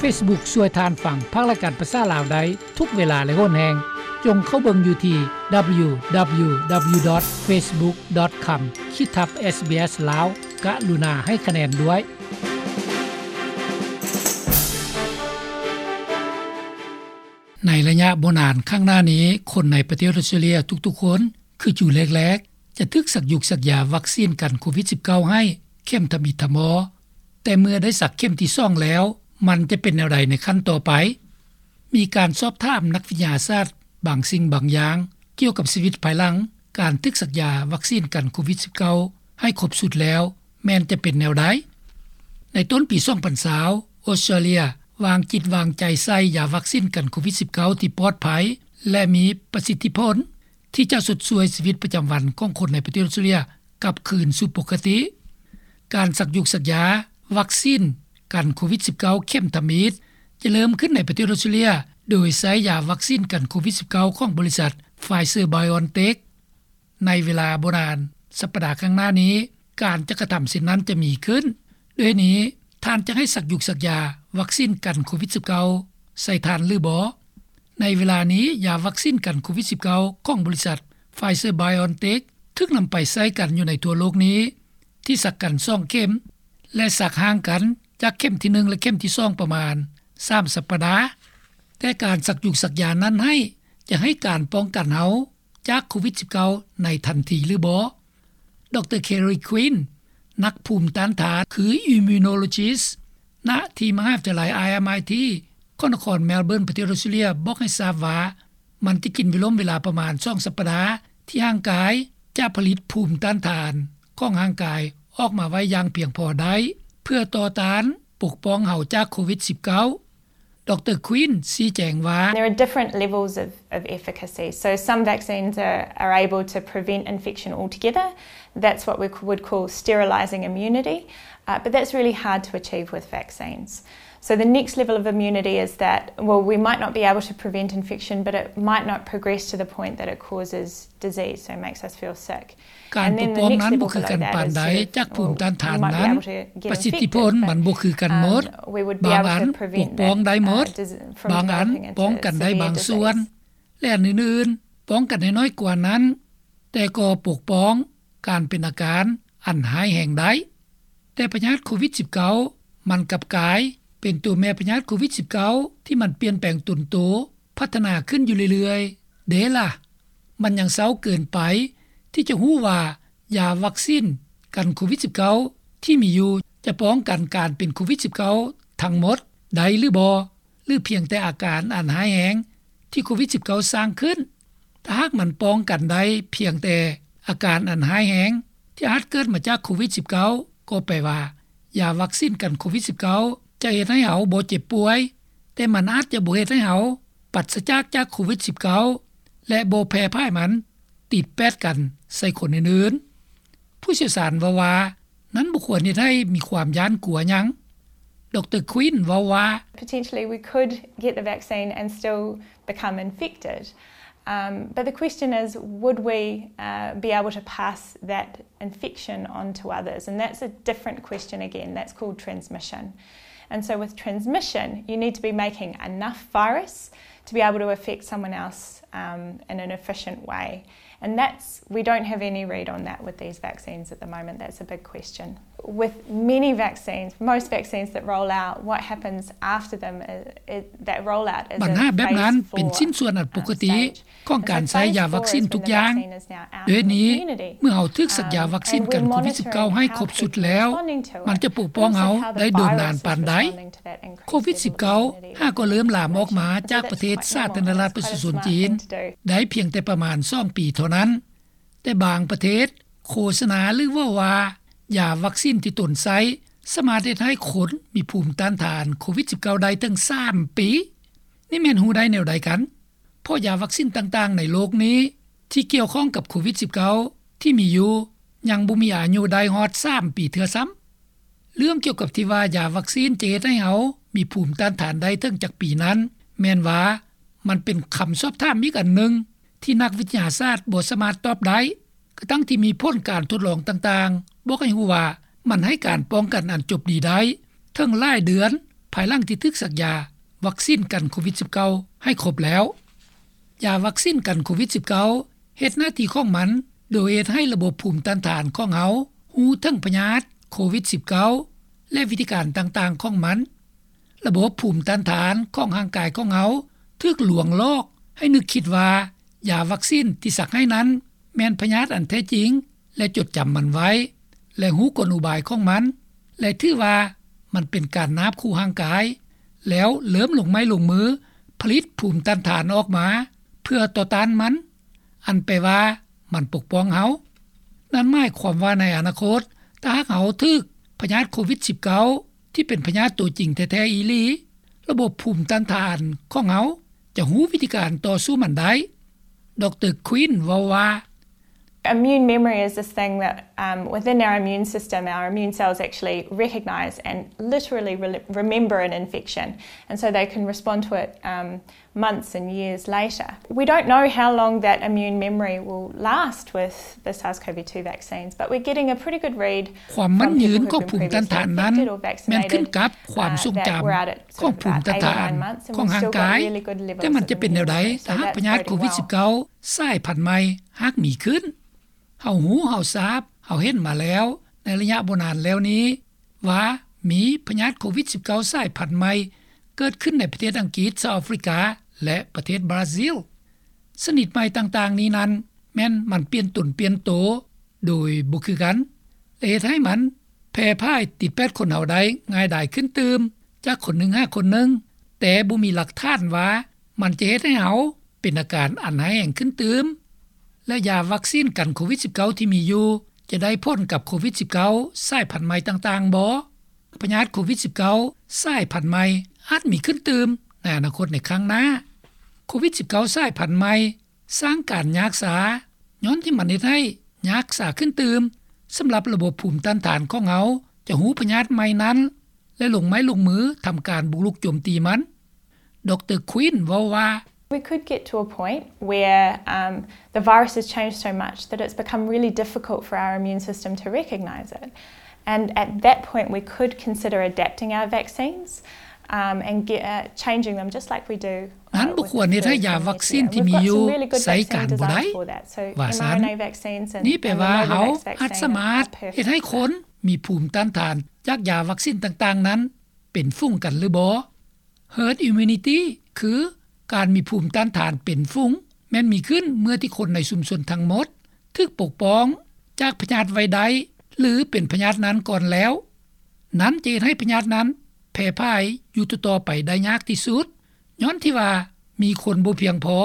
Facebook ຊ່ວຍທ່ານຟັງພັກລາຍການພາສາລາວໄດ້ທຸກເວລາ ແລະ ໂຫນແຮງ. ຈົ່ງເຂົ້າເບິ່ງຢູ່ທີ່ www.facebook.com ຂີດທັບ SBS ລາວ. ກະລຸນາໃຫ້ຄະແນນດ້ວຍ. ໃນໄລຍະບໍ່ນານຂ້າງໜ້ານີ້, ຄົນໃນປະເທດອອສເຕຣເລັຽທຸກໆຄົນ ຄືຈູແລກໆ ຈະຖືກສັກຢູກສັກຢາວັກຊີນກັນໂຄວິດສິບເກົ້າໃຫ້ເຂັມທຳອິດທຳມໍ, ແຕ່ເມື່ອໄດ້ສັກເຂັມທີສອງແລ້ວ, ມັນຈະເປັນແນວໃດໃນຂັ້ນຕໍ່ໄປ? ມີການສອບຖາມນັກວິທະຍາສາດບາງສິ່ງບາງຢ່າງ ກ່ຽວກັບຊີວິດພາຍຫຼັງການຖືກສັກຢາວັກຊີນກັນໂຄວິດສິບເກົ້າໃຫ້ຄົບຊຸດແລ້ວ ແມ່ນຈະເປັນແນວໃດ? ໃນຕົ້ນປີສອງພັນຊາວ, ອອສເຕຣເລັຽວາງຈິດວາງໃຈໃສ່ຢາວັກຊີນກັນໂຄວິດສິບເກົ້າທີ່ປອດໄພ ແລະ ມີປະສິດທິຜົນ ທີ່ຈະຊົດຊ່ວຍຊີວິດປະຈຳວັນຂອງຄົນໃນປະເທດອອສເຕຣເລັຽກັບຄືນສູ່ປົກກະຕິ. ການສັກຢູກສັກຢາວັກຊີນກັນໂຄວິດສິບເກົ້າເຂັມທຳອິດ ຈະເລີ່ມຂຶ້ນໃນປະເທດອອສເຕຣເລັຽ ໂດຍໃຊ້ຢາວັກຊີນກັນໂຄວິດສິບເກົ້າຂອງບໍລິສັດ Pfizer BioNTech. ໃນເວລາບໍ່ນານສັບປະດາຂ້າງໜ້ານີ້, ການຈັດກະທຳເຊັ່ນນັ້ນຈະມີຂຶ້ນ. ດ້ວຍນີ້, ທ່ານຈະໃຫ້ສັກຢູກສັກຢາວັກຊີນກັນໂຄວິດສິບເກົ້າໃສ່ທ່ານຫຼືບໍ່? ໃນເວລານີ້, ຢາວັກຊີນກັນໂຄວິດສິບເກົ້າຂອງບໍລິສັດ Pfizer BioNTech ຖືກນຳໄປໃຊ້ກັນຢູ່ໃນທົ່ວໂລກນີ້ ທີ່ສັກກັນສອງເຂັມ ແລະ ສັກຫ່າງກັນຈາກເຂັມທີໜຶ່ງ ແລະ ເຂັມທີສອງປະມານສາມສັບປະດາ. ແຕ່ການສັກຢູກສັກຢານັ້ນໃຫ້ ຈະໃຫ້ການປ້ອງກັນເຮົາ ຈາກໂຄວິດສິບເກົ້າໃນທັນທີຫຼືບໍ່? ດຣ. Kerry Quinn ນັກພູມຕ້ານທານ ຄື Immunologist ນະທີ່ມະຫາວິທະຍາໄລ RMIT ຂອງນະຄອນ Melbourne ປະເທດອອສເຕຣເລັຽ ບອກໃຫ້ຊາບວ່າ ມັນຈະກິນເວລົມເວລາປະມານສອງສັບປະດາ ທີ່ຮ່າງກາຍຈະຜະລິດພູມຕ້ານທານຂອງຮ່າງກາຍອອກມາໄວ້ຢ່າງພຽງພໍໄດ້ ເພື່ອຕໍ່ຕ້ານປົກປ້ອງເຮົາຈາກໂຄວິດສິບເກົ້າ. ດຣ. Quinn ຊີ້ແຈງວ່າ There are different levels of, of efficacy. So some vaccines are, are able to prevent infection altogether. That's what we would call sterilizing immunity. Uh, but that's really hard to achieve with vaccines. So the next level of immunity is that, well, we might not be able to prevent infection, but it might not progress to the point that it causes disease, so it makes us feel sick. ການປົກປ້ອງນັ້ນບໍ່ຄືກັນປານໃດຈາກພູມຕ້ານທານນັ້ນ, ປະສິດທິຜົນມັນບໍ່ຄືກັນໝົດ, ບາງອັນປົກປ້ອງໄດ້ໝົດ, ບາງອັນປ້ອງກັນໄດ້ບາງສ່ວນ ແລະ ອັນອື່ນໆປ້ອງກັນໄດ້ໜ້ອຍກວ່ານັ້ນ, ແຕ່ກໍປົກປ້ອງການເປັນອາການອັນຮ້າຍແຮງໄດ້. ແຕ່ພະຍາດໂຄວິດສິບເກົ້າ ມັນກັບກາຍເປັນຕົວແມ່ພະຍາດໂຄວິດສິບເກົ້າ ທີ່ມັນປ່ຽນແປງຕົນໂຕ ພັດທະນາຂຶ້ນຢູ່ເລື້ອຍໆ ເດ້ລະ. ມັນຍັງເຊົ້າເກີນໄປທີ່ຈະຮູ້ວ່າ ຢາວັກຊີນກັນໂຄວິດສິບເກົ້າ ທີ່ມີຢູ່ຈະປ້ອງກັນການເປັນໂຄວິດສິບເກົ້າທັງໝົດໄດ້ຫຼືບໍ່ ຫຼື ພຽງແຕ່ອາການອັນຮ້າຍແຮງທີ່ໂຄວິດສິບເກົ້າສ້າງຂຶ້ນ. ຖ້າຫາກມັນປ້ອງກັນໄດ້ພຽງແຕ່ອາການອັນຮ້າຍແຮງທີ່ອາດເກີດມາຈາກໂຄວິດສິບເກົ້າ ກໍແປວ່າ ຢາວັກຊີນກັນໂຄວິດສິບເກົ້າ ຈະເຮັດໃຫ້ເຮົາບໍ່ເຈັບປ່ວຍ, ແຕ່ມັນອາດຈະບໍ່ເຮັດໃຫ້ເຮົາປາສຈາກຈາກໂຄວິດສິບເກົ້າ ແລະ ບໍ່ແຜ່ພາຍມັນຕິດແປດກັນໃສ່ຄົນອື່ນໆ. ຜູ້ຊ່ຽວຊານເວົ້າວ່າ ນັ້ນບໍ່ຄວນເຮັດໃຫ້ມີຄວາມຢ້ານກົວຫຍັງ. ດຣ. Quinn ເວົ້າວ່າ Potentially we could get the vaccine and still become infected. Um, but the question is, would we, uh, be able to pass that infection on to others? And that's a different question again. That's called transmission. And so with transmission, you need to be making enough virus to be able to affect someone else, um, in an efficient way. And that's, we don't have any read on that with these vaccines at the moment. That's a big question. With many vaccines, most vaccines that roll out, what happens after them is, is that rollout is ບັນຫາແບບນັ້ນເປັນຊິ້ນສ່ວນອັນປົກກະຕິຂອງການໃຊ້ຢາວັກຊີນທຸກຢ່າງ. ດ້ວຍນີ້, ເມື່ອເຮົາຖືກສັກຢາວັກຊີນກັນໂຄວິດສິບເກົ້າໃຫ້ຄົບຊຸດແລ້ວ, ມັນຈະປົກປ້ອງເຮົາໄດ້ດົນນານປານໃດ? ໂຄວິດສິບເກົ້າຫາກໍເລີ່ມລາມອອກມາຈາກປະເທດສາທາລະນະລັດປະຊາຊົນຈີນໄດ້ພຽງແຕ່ປະມານສອງປີເທົ່ານັ້ນ, ແຕ່ບາງປະເທດໂຄສະນາ ຫຼື ເວົ້າວ່າ ຢາວັກຊີນທີ່ຕົນໃຊ້ສາມາດເຮັດໃຫ້ຄົນມີພູມຕ້ານທານໂຄວິດສິບເກົ້າໄດ້ເຖິງສາມປີ. ນີ້ແມ່ນຮູ້ໄດ້ແນວໃດກັນ? ເພາະຢາວັກຊີນຕ່າງໆໃນໂລກນີ້ທີ່ກ່ຽວຂ້ອງກັບໂຄວິດສິບເກົ້າທີ່ມີຢູ່ຍັງບໍ່ມີອາຍຸໄດ້ຮອດສາມປີເທື່ອຊ້ຳ. ເລື່ອງກ່ຽວກັບທີ່ວ່າຢາວັກຊີນຈະເຮັດໃຫ້ເຮົາມີພູມຕ້ານທານໄດ້ເຖິງຈັກປີນັ້ນ, ແມ່ນວ່າມັນເປັນຄຳສອບຖາມອີກອັນໜຶ່ງທີ່ນັກວິທະຍາສາດບໍ່ສາມາດຕອບໄດ້, ກະທັ່ງທີ່ມີຜົນການທົດລອງຕ່າງໆບອກໃຫ້ຮູ້ວ່າມັນໃຫ້ການປ້ອງກັນອັນຈົບດີໄດ້ເຖິງຫຼາຍເດືອນ ພາຍຫຼັງທີ່ຖືກສັກຢາວັກຊີນກັນໂຄວິດສິບເກົ້າໃຫ້ຄົບແລ້ວ. ຢາວັກຊີນກັນໂຄວິດສິບເກົ້າເຮັດໜ້າທີ່ຂອງມັນ ໂດຍເຮັດໃຫ້ລະບົບພູມຕ້ານທານຂອງເຮົາຮູ້ເຖິງພະຍາດໂຄວິດສິບເກົ້າ ແລະ ວິທີການຕ່າງໆຂອງມັນ. ລະບົບພູມຕ້ານທານຂອງຮ່າງກາຍຂອງເຮົາຖືກລວງຫຼອກໃຫ້ນຶກຄິດວ່າ ຢາວັກຊີນທີ່ສັກໃຫ້ນັ້ນແມ່ນພະຍາດອັນແທ້ຈິງ ແລະ ຈົດຈຳມັນໄວ້ ແລະ ຮູ້ກົນອຸບາຍຂອງມັນ ແລະ ຖືວ່າມັນເປັນການນາບຂູ່ຮ່າງກາຍ ແລ້ວເລີ່ມລົງໄມ້ລົງມືຜະລິດພູມຕ້ານທານອອກມາເພື່ອຕໍ່ຕ້ານມັນ, ອັນແປວ່າມັນປົກປ້ອງເຮົາ. ນັ້ນໝາຍຄວາມວ່າໃນອະນາຄົດ, ຖ້າຫາກເຮົາຖືກພະຍາດໂຄວິດສິບເກົ້າ ທີ່ເປັນພະຍາດຕົວຈິງແທ້ໆອີ່ຫຼີ, ລະບົບພູມຕ້ານທານຂອງເຮົາຈະຮູ້ວິທີການຕໍ່ສູ້ມັນໄດ້. ດຣ. Quinn ເວົ້າວ່າ, Immune memory is this thing that, um, within our immune system, our immune cells actually recognise and literally re- remember an infection, and so they can respond to it, um, months and years later. We don't know how long that immune memory will last with the SARS-CoV two vaccines, but we're getting a pretty good read ຄວາມໝັ້ນຍືນຂອງພູມຕ້ານທານນັ້ນແມ່ນຂຶ້ນກັບຄວາມຊົງຈຳຂອງພູມຕ້ານທານຂອງຮ່າງກາຍ, ແຕ່ມັນຈະເປັນແນວໃດຖ້າຫາກພະຍາດໂຄວິດສິບເກົ້າສາຍພັນໃໝ່ຫາກມີຂຶ້ນ? ເຮົາຮູ້, ເຮົາຊາບ, ເຮົາເຫັນມາແລ້ວໃນໄລຍະບໍ່ນານແລ້ວນີ້ວ່າມີພະຍາດໂຄວິດສິບເກົ້າສາຍພັນໃໝ່ເກີດຂຶ້ນໃນປະເທດອັງກິດ, ສະຫະລັດອາຟຣິກາ ແລະ ປະເທດບຣາຊິລ. ຊະນິດໃໝ່ຕ່າງໆນີ້ນັ້ນແມ່ນມັນປ່ຽນຕົນປ່ຽນໂຕໂດຍບໍ່ຄືກັນ ແລະ ເຮັດໃຫ້ມັນແຜ່ພາຍຕິດແປດຄົນເຮົາໄດ້ງ່າຍດາຍຂຶ້ນຕື່ມຈາກຄົນໜຶ່ງຫາຄົນໜຶ່ງ, ແຕ່ບໍ່ມີຫຼັກຖານວ່າມັນຈະເຮັດໃຫ້ເຮົາ ເປັນອາການອັນຮ້າຍແຮງຂຶ້ນຕື່ມ ແລະ ຢາວັກຊີນກັນໂຄວິດສິບເກົ້າທີ່ມີຢູ່ຈະໄດ້ຜົນກັບໂຄວິດສິບເກົ້າສາຍພັນໃໝ່ຕ່າງໆບໍ່? ພະຍາດໂຄວິດສິບເກົ້າສາຍພັນໃໝ່ອາດມີຂຶ້ນຕື່ມໃນອະນາຄົດໃນຄັ້ງໜ້າ. ໂຄວິດສິບເກົ້າສາຍພັນໃໝ່ສ້າງການຍາກຊາ ຍ້ອນທີ່ມັນເຮັດໃຫ້ຍາກຊາຂຶ້ນຕື່ມສຳລັບລະບົບພູມຕ້ານທານຂອງເຮົາຈະຮູ້ພະຍາດໃໝ່ນັ້ນ ແລະ ລົງໄມ້ລົງມືທຳການບຸກລຸກໂຈມຕີມັນ. ດຣ. Quinn ເວົ້າວ່າ, We could get to a point where, um, the virus has changed so much that it's become really difficult for our immune system to recognise it. And at that point, we could consider adapting our vaccines, um, and get, uh, changing them just like we do, uh, ນັ້ນບໍ່ຄວນເຮັດໃຫ້ຢາວັກຊີນທີ່ມີຢູ່ໃຊ້ການບໍ່ໄດ້ ວ່າຊັ້ນ. ນີ້ແປວ່າເຮົາອາດສາມາດເຮັດໃຫ້ຄົນມີພູມຕ້ານທານຈາກຢາວັກຊີນຕ່າງໆນັ້ນ ເປັນຝູງກັນຫຼືບໍ່? Herd immunity ຄືການມີພູມຕ້ານທານເປັນຝູງ ແມ່ນມີຂຶ້ນເມື່ອທີ່ຄົນໃນຊຸມຊົນທັງໝົດຖືກປົກປ້ອງຈາກພະຍາດໄວ້ໄດ້ ຫຼື ເປັນພະຍາດນັ້ນກ່ອນແລ້ວ. ນັ້ນຈະເຮັດໃຫ້ພະຍາດນັ້ນແຜ່ພາຍຢູ່ຕໍ່ໆໄປໄດ້ຍາກທີ່ສຸດ ຍ້ອນທີ່ວ່າມີຄົນບໍ່ພຽງພໍ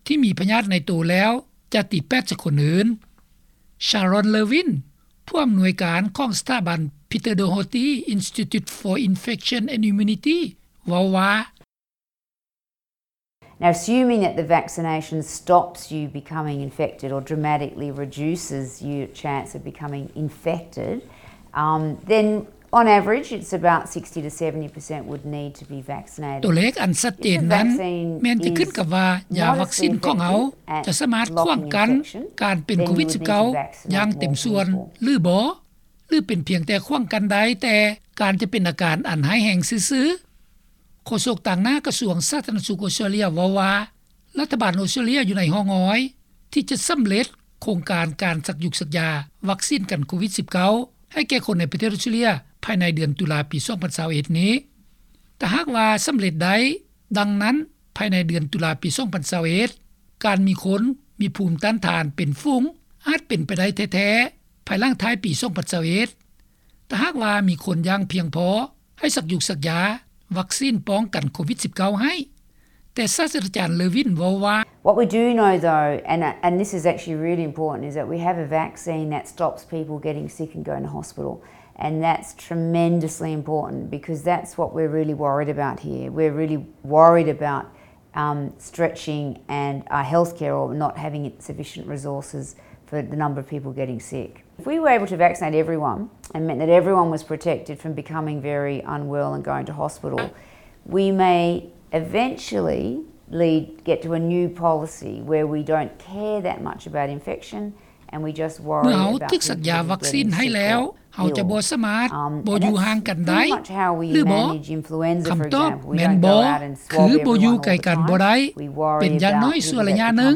ທີ່ມີພະຍາດໃນໂຕແລ້ວຈະຕິດແປດໃສ່ຄົນອື່ນ. Sharon Levin ຜູ້ອຳນວຍການຂອງສະຖາບັນ Peter Doherty Institute for Infection and Immunity ເວົ້າວ່າ, Now, assuming that the vaccination stops you becoming infected or dramatically reduces your chance of becoming infected, um, then on average, it's about sixty to seventy percent would need to be vaccinated. ຕົວເລກອັນຊັດເຈນນັ້ນແມ່ນຈະຂຶ້ນກັບວ່າຢາວັກຊີນຂອງເຮົາຈະສາມາດຂວາງກັ້ນການເປັນໂຄວິດສິບເກົ້າຢ່າງເຕັມສ່ວນຫຼືບໍ່ ຫຼື ເປັນພຽງແຕ່ຂວາງກັ້ນໄດ້ແຕ່ການຈະເປັນອາການອັນຮ້າຍແຮງຊື່ໆ. ໂຄສົກຕາງໜ້າກະຊວງສາທາລະນະສຸກອົດສະຕຣາເລຍເວົ້າວ່າ ລັດຖະບານອົດສະຕຣາເລຍຢູ່ໃນຮ່ອງຮອຍທີ່ຈະສຳເລັດໂຄງການການສັກຢຸກສັກຢາວັກຊີນກັນໂຄວິດສິບເກົ້າໃຫ້ແກ່ຄົນໃນປະເທດອົດສະຕຣາເລຍພາຍໃນເດືອນຕຸລາປີສອງພັນຊາວເອັດນີ້. ຖ້າຫາກວ່າສຳເລັດໄດ້ດັ່ງນັ້ນ ພາຍໃນເດືອນຕຸລາປີສອງພັນຊາວເອັດ ການມີຄົນມີພູມຕ້ານທານເປັນຝູງອາດເປັນໄປໄດ້ແທ້ໆ ພາຍຫຼັງທ້າຍປີສອງພັນຊາວເອັດ ຖ້າຫາກວ່າມີຄົນຢ່າງພຽງພໍໃຫ້ສັກຢຸກສັກຢາວັກຊີນປ້ອງກັນໂຄວິດສິບເກົ້າໃຫ້. ແຕ່ສາດສະດາຈານ Levin ເວົ້າວ່າ, What we do know, though, and, and this is actually really important, is that we have a vaccine that stops people getting sick and going to hospital. And that's tremendously important because that's what we're really worried about here. We're really worried about, um, stretching and our healthcare or not having sufficient resources for the number of people getting sick. If we were able to vaccinate everyone and meant that everyone was protected from becoming very unwell and going to hospital, we may eventually lead, get to a new policy where we don't care that much about infection And we just worry about people getting sick or ill. ເມື່ອເຮົາຖືກສັກຢາວັກຊີນໃຫ້ແລ້ວ ເຮົາຈະບໍ່ສາມາດບໍ່ຢູ່ຫ່າງກັນໄດ້ ຫຼືບໍ່? ຄຳຕອບແມ່ນບໍ່ ຄືບໍ່ຢູ່ໃກ້ກັນບໍ່ໄດ້ ເປັນຢ່າງໜ້ອຍຊົ່ວໄລຍະໜຶ່ງ.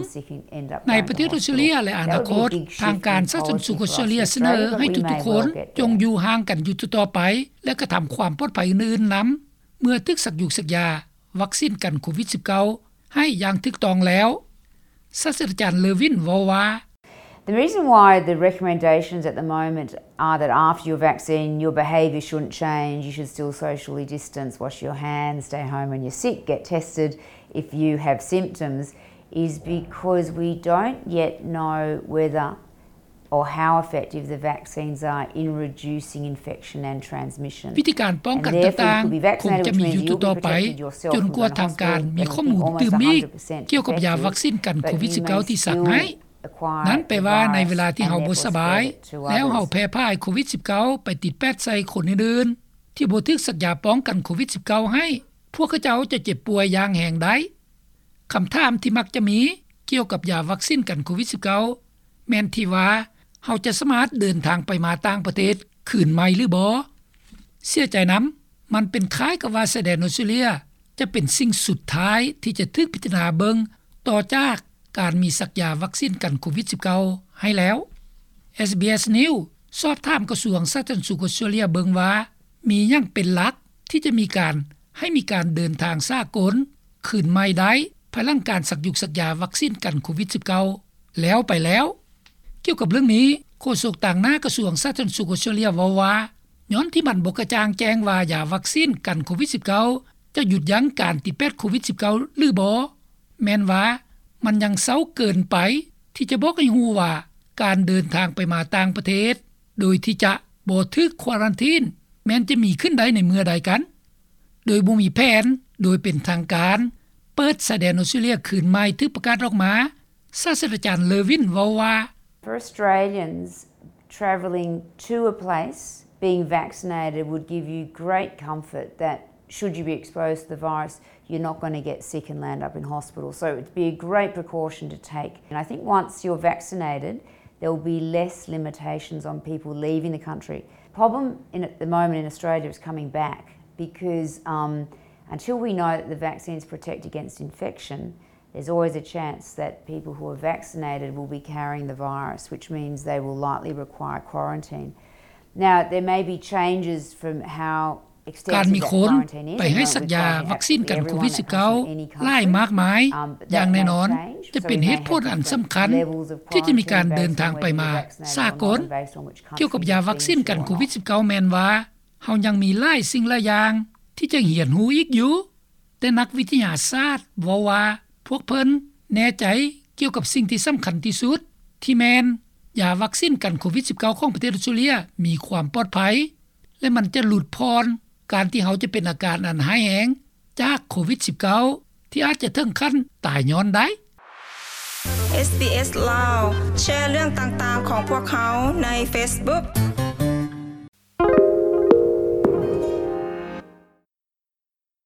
ໃນປະເທດອອສເຕຣເລັຽ ແລະ ອະນາຄົດ ທາງການສາທາລະນະສຸກອອສເຕຣເລັຽສະເໜີໃຫ້ທຸກໆຄົນ ຈົ່ງຢູ່ຫ່າງກັນຢູ່ຕໍ່ໄປ ແລະ ກະທຳຄວາມປອດໄພອື່ນໆນຳ ເມື່ອຖືກສັກຢູກສັກຢາວັກຊີນກັນໂຄວິດສິບເກົ້າ ໃຫ້ຢ່າງຖືກຕ້ອງແລ້ວ. ສາດສະດາຈານ ເລີວິນ ເວົ້າວ່າ The reason why the recommendations at the moment are that after your vaccine, your behaviour shouldn't change, you should still socially distance, wash your hands, stay home when you're sick, get tested if you have symptoms, is because we don't yet know whether or how effective the vaccines are in reducing infection and transmission. ວິທີການປ້ອງກັນຕ່າງໆ ຄົງຈະມີຢູ່ຕໍ່ໆໄປ ຈົນກວ່າທາງການມີຂໍ້ມູນຕື່ມອີກ ກ່ຽວກັບຢາວັກຊີນກັນໂຄວິດສິບເກົ້າ ທີ່ສັກໃຫ້. ນັ້ນແປວ່າໃນເວລາທີ່ເຮົາບໍ່ສະບາຍ ແລ້ວເຮົາແຜ່ພາຍໂຄວິດສິບເກົ້າ ໄປຕິດແປດໃສ່ຄົນອື່ນໆ ທີ່ບໍ່ຖືກສັກຢາປ້ອງກັນໂຄວິດສິບເກົ້າ ໃຫ້ ພວກເຂົາເຈົ້າຈະເຈັບປ່ວຍຢ່າງແຮງໄດ້. ຄຳຖາມທີ່ມັກຈະມີກ່ຽວກັບຢາວັກຊີນກັນໂຄວິດສິບເກົ້າ ແມ່ນທີ່ວ່າ ເຮົາຈະສາມາດເດີນທາງໄປມາຕ່າງປະເທດຄືນໃໝ່ຫຼືບໍ່? ເສຍໃຈນຳ, ມັນເປັນຄ້າຍກັບວ່າຊາຍແດນອອສເຕຣເລັຽຈະເປັນສິ່ງສຸດທ້າຍທີ່ຈະຖືກພິຈາລະນາເບິ່ງ ຕໍ່ຈາກການມີສັກຢາວັກຊີນກັນໂຄວິດສິບເກົ້າ ໃຫ້ແລ້ວ. ເອສບີເອສ News ສອບຖາມກະຊວງສາທາລະນະສຸກອອສເຕຣເລັຽເບິ່ງວ່າ ມີຫຍັງເປັນຫຼັກທີ່ຈະມີການ ໃຫ້ມີການເດີນທາງສາກົນຄືນໃໝ່ໄດ້ ພາຍຫຼັງການສັກຢູກສັກຢາວັກຊີນກັນໂຄວິດສິບເກົ້າ ແລ້ວໄປແລ້ວ. ກ່ຽວກັບເລື່ອງນີ້, ໂຄສົກຕາງໜ້າກະຊວງສາທາລະນະສຸກອອສເຕຣເລັຽເວົ້າວ່າ ຍ້ອນທີ່ມັນບໍ່ກະຈ່າງແຈ້ງວ່າຢາວັກຊີນກັນໂຄວິດສິບເກົ້າ ຈະຢຸດຢັ້ງການຕິດແປດໂຄວິດສິບເກົ້າ ຫຼືບໍ່, ແມ່ນວ່າມັນຍັງເຊົ້າເກີນໄປທີ່ຈະບອກໃຫ້ຮູ້ວ່າ ການເດີນທາງໄປມາຕ່າງປະເທດ ໂດຍທີ່ຈະບໍ່ຖືກຄວາຣັນທີນ ແມ່ນຈະມີຂຶ້ນໄດ້ໃນເມື່ອໃດກັນ. ໂດຍບໍ່ມີແຜນໂດຍເປັນທາງການ ເປີດຊາຍແດນອອສເຕຣເລັຽຄືນໃໝ່ຖືກປະກາດອອກມາ, ສາດສະດາຈານ ເລີວິນ ເວົ້າວ່າ For Australians travelling to a place, being vaccinated would give you great comfort that should you be exposed to the virus, you're not gonna get sick and land up in hospital. So it'd be a great precaution to take. And I think once you're vaccinated, there will be less limitations on people leaving the country. Problem in, at the moment in Australia is coming back because, um, until we know that the vaccines protect against infection, there's always a chance that people who are vaccinated will be carrying the virus, which means they will likely require quarantine. Now, there may be changes from how ການມີຄົນໄປໃຫ້ສັກຢາວັກຊີນກັນໂຄວິດສິບເກົ້າຫຼາຍມາກມາຍ ຢ່າງແນ່ນອນຈະເປັນເຫດຜົນອັນສຳຄັນທີ່ຈະມີການເດີນທາງໄປມາສາກົນ. ກ່ຽວກັບຢາວັກຊີນກັນໂຄວິດສິບເກົ້າ ແມ່ນວ່າເຮົາຍັງມີຫຼາຍສິ່ງຫຼາຍຢ່າງທີ່ຈະຮຽນຮູ້ອີກຢູ່, ແຕ່ນັກວິທະຍາສາດເວົ້າວ່າ ພວກເພິ່ນແນ່ໃຈກ່ຽວກັບສິ່ງທີ່ສຳຄັນທີ່ສຸດ ທີ່ແມ່ນຢາວັກຊີນກັນໂຄວິດສິບເກົ້າ ຂອງປະເທດອອສເຕຣເລັຽມີຄວາມປອດໄພ ແລະ ມັນຈະຫຼຸດຜ່ອນການທີ່ເຮົາຈະເປັນອາການອັນຮ້າຍແຮງຈາກໂຄວິດສິບເກົ້າ ທີ່ອາດຈະເຖິງຂັ້ນຕາຍຍ້ອນໄດ້. ເອສບີເອສ ລາວ ແຊເລື່ອງຕ່າງໆຂອງພວກເຮົາໃນເຟສບຸກ